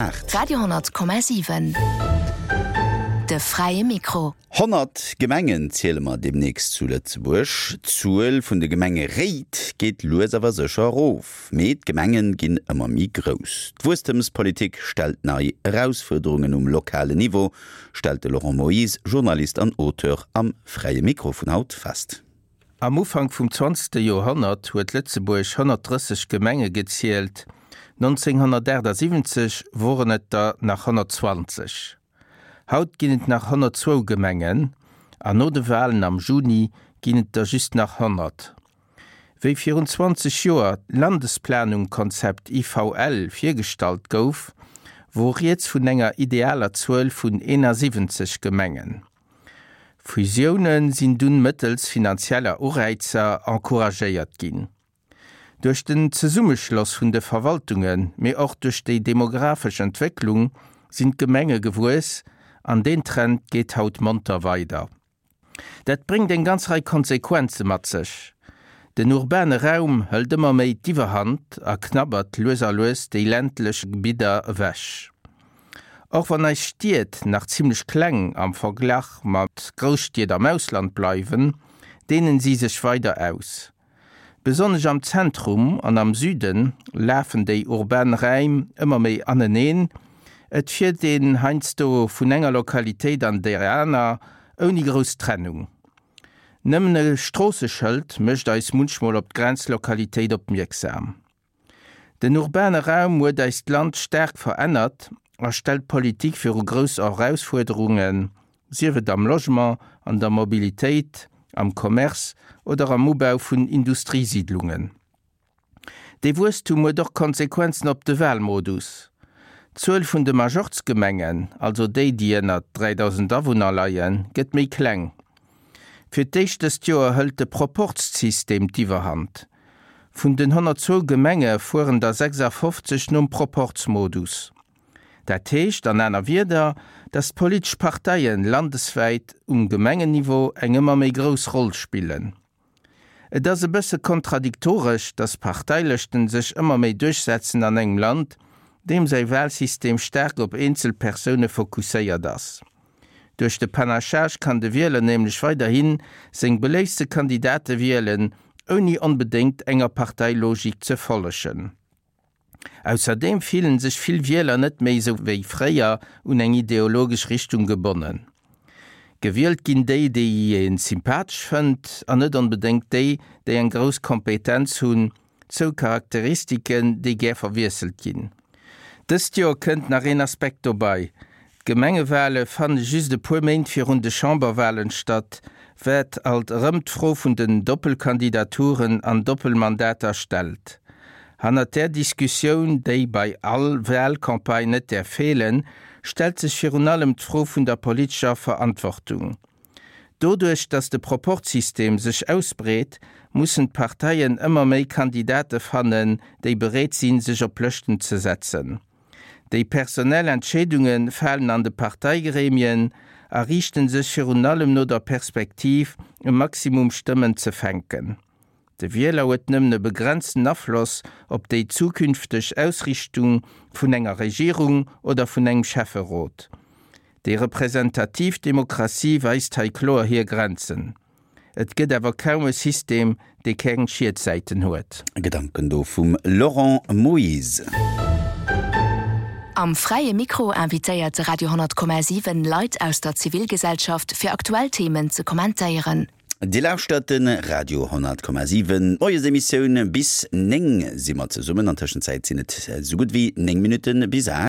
8. Radio 10,7 De fräie Mikro. 100 Gemengen ziele mer deemnächst zu Lëtzebuerg. D'Zuel vun de Gemengeréit geet lues awer sécher erof, mee d'Gemenge ginn ëmmer méi grouss. D'Wuesstemspolitik stellt nei Erausfuerderungen um lokalen Niveau, stellt de Laurent Moyse, Journalist an Auteur, am Fräie Mikro vun haut fest. Am Ufank vum zwanzegste Joerhonnert huet Lëtzebuerg 130 Gemenge gezielt, 1978 woren et der nach 120. Haut ginn et nach 102 Gemengen an no de Walen am Juni ginn et der just nach 100. Wéi virun 20 Joer d'Landesplanungkonzept IVL virgestallt gouf, wor rieds vun enger idealer Zuel vun 71 Gemengen. Fusioune sinn dunn mëttels finanzieller Uräizer encouragéiert ginn. Duerch den Zesummeschloss vun de Verwaltungen, mee och duerch déi demografesch Entwécklung sinn d'Gemenge gewuess an deen Trend geet haut monter weider. Dat bréngt eng ganz Rei Konsequenze mat sech. Den urbane Raum hëlt ëmmer méi d'Iwwerhand a knabbert lues a lues déi ländlech Gebidder ewech. Och wann eis Stied nach zimlech kleng am Verglach mat Grousstied am Ausland bleiwen, deenen si sech weider aus. Besonnesch am Zentrum an am Süde lafen déi urban Räim ëmmer méi aneneen, et fiert een heiansdo vun enger Lokalitéit an déi aner ouni grouss Trennung. Nëmmen e Stroosseschëld mécht eis munchmol op d'Grenzlokalitéit opmierksam. Den urbane Raum huet eist Land staark verännert a stellt d'Politik viru grouss Erausfuerderungen, sief et am Logement, an der Mobilitéit, am Commerce oder am Ubau vun Industriesiidlungen. Dee Wuesstum huet och Konsequenzen op de Wahlmodus. D'Zuel vun de Majorz-Gemengen, also déi, déi ënnert 3.000 Awunner leien, gëtt méi kleng. Fir d'éischt dëst Joer hëlt de Proporzsystem d'Iwwerhand. Vun den 102 Gemenge fueren der 56 nom Proporzmodus. Dat heescht an aner Wierder, datt d'politesch Parteien landeswäit um Gemengenniveau eng ëmmer méi grouss Roll spillen. Et ass e bësse kontradiktoresch, datt Parteilëschten sech ëmmer méi duerchsetzen an engem Land, deem säi Wahlsystem staark op eenzel Persoune fokusséiert ass. Duerch de Panachage kann de Wieler nämlech weiderhi seng beléiftste Kandidate wielen, ouni onbedéngt enger Parteilogik ze follegen. Ausserdeem fillen sech vill Wieler net méi sou wéi fréier un eng ideologesch Richtung gebonnen. Gewielt ginn déi, déi ee sympathesch fënnt, an net onbedéngt déi, déi eng grouss Kompetenz hunn, Zwou Charakteristiken, déi gär verwiesselt ginn. Dëst Joer kënnt nach een Aspekt dobei, D'Gemengewale fanne just e puer Méint virun de Chamberwalen statt, wat alt erëm d'Fro vun den Doppelkandidaturen an Doppelmandater stellt. Hannert där Diskussioun, déi bei all Walcampagne net däerf feelen, stellt sech virun allem d'Fro vun der politescher Verantwortung. Doduerch, datt de Proporzsystem sech ausbreet, mussen d'Parteien ëmmer méi Kandidate fannen, déi bereet sinn, sech op Lëschten ze setzen. Déi personell Entscheedunge falen an de Parteigremien a riichte sech virun allem no der Perspektiv, e Maximum Stëmmen ze fänken. De Wieler huet nëmmen e begrenzten Afloss op déi zukünfteg Ausrichtung vun enger Regierung oder vun engem Schäfferot. Déi representativ Demokratie weist hei kloer hir Grenzen. Et gëtt awer kaum e System, dee keng Schietsäiten huet. Gedanken do vum Laurent Moyse. Am Fräie Mikro invitéiert de Radio 10,7 Leit aus der Zivilgesellschaft fir aktuell Themen ze kommentéieren. Dir lauschtert de Radio 10,7, d'Moiesemissioun. Bis 9 si mer zesummen. An Tëschenzäit sinn et esou gutt wéi 9 Minutte bis 8.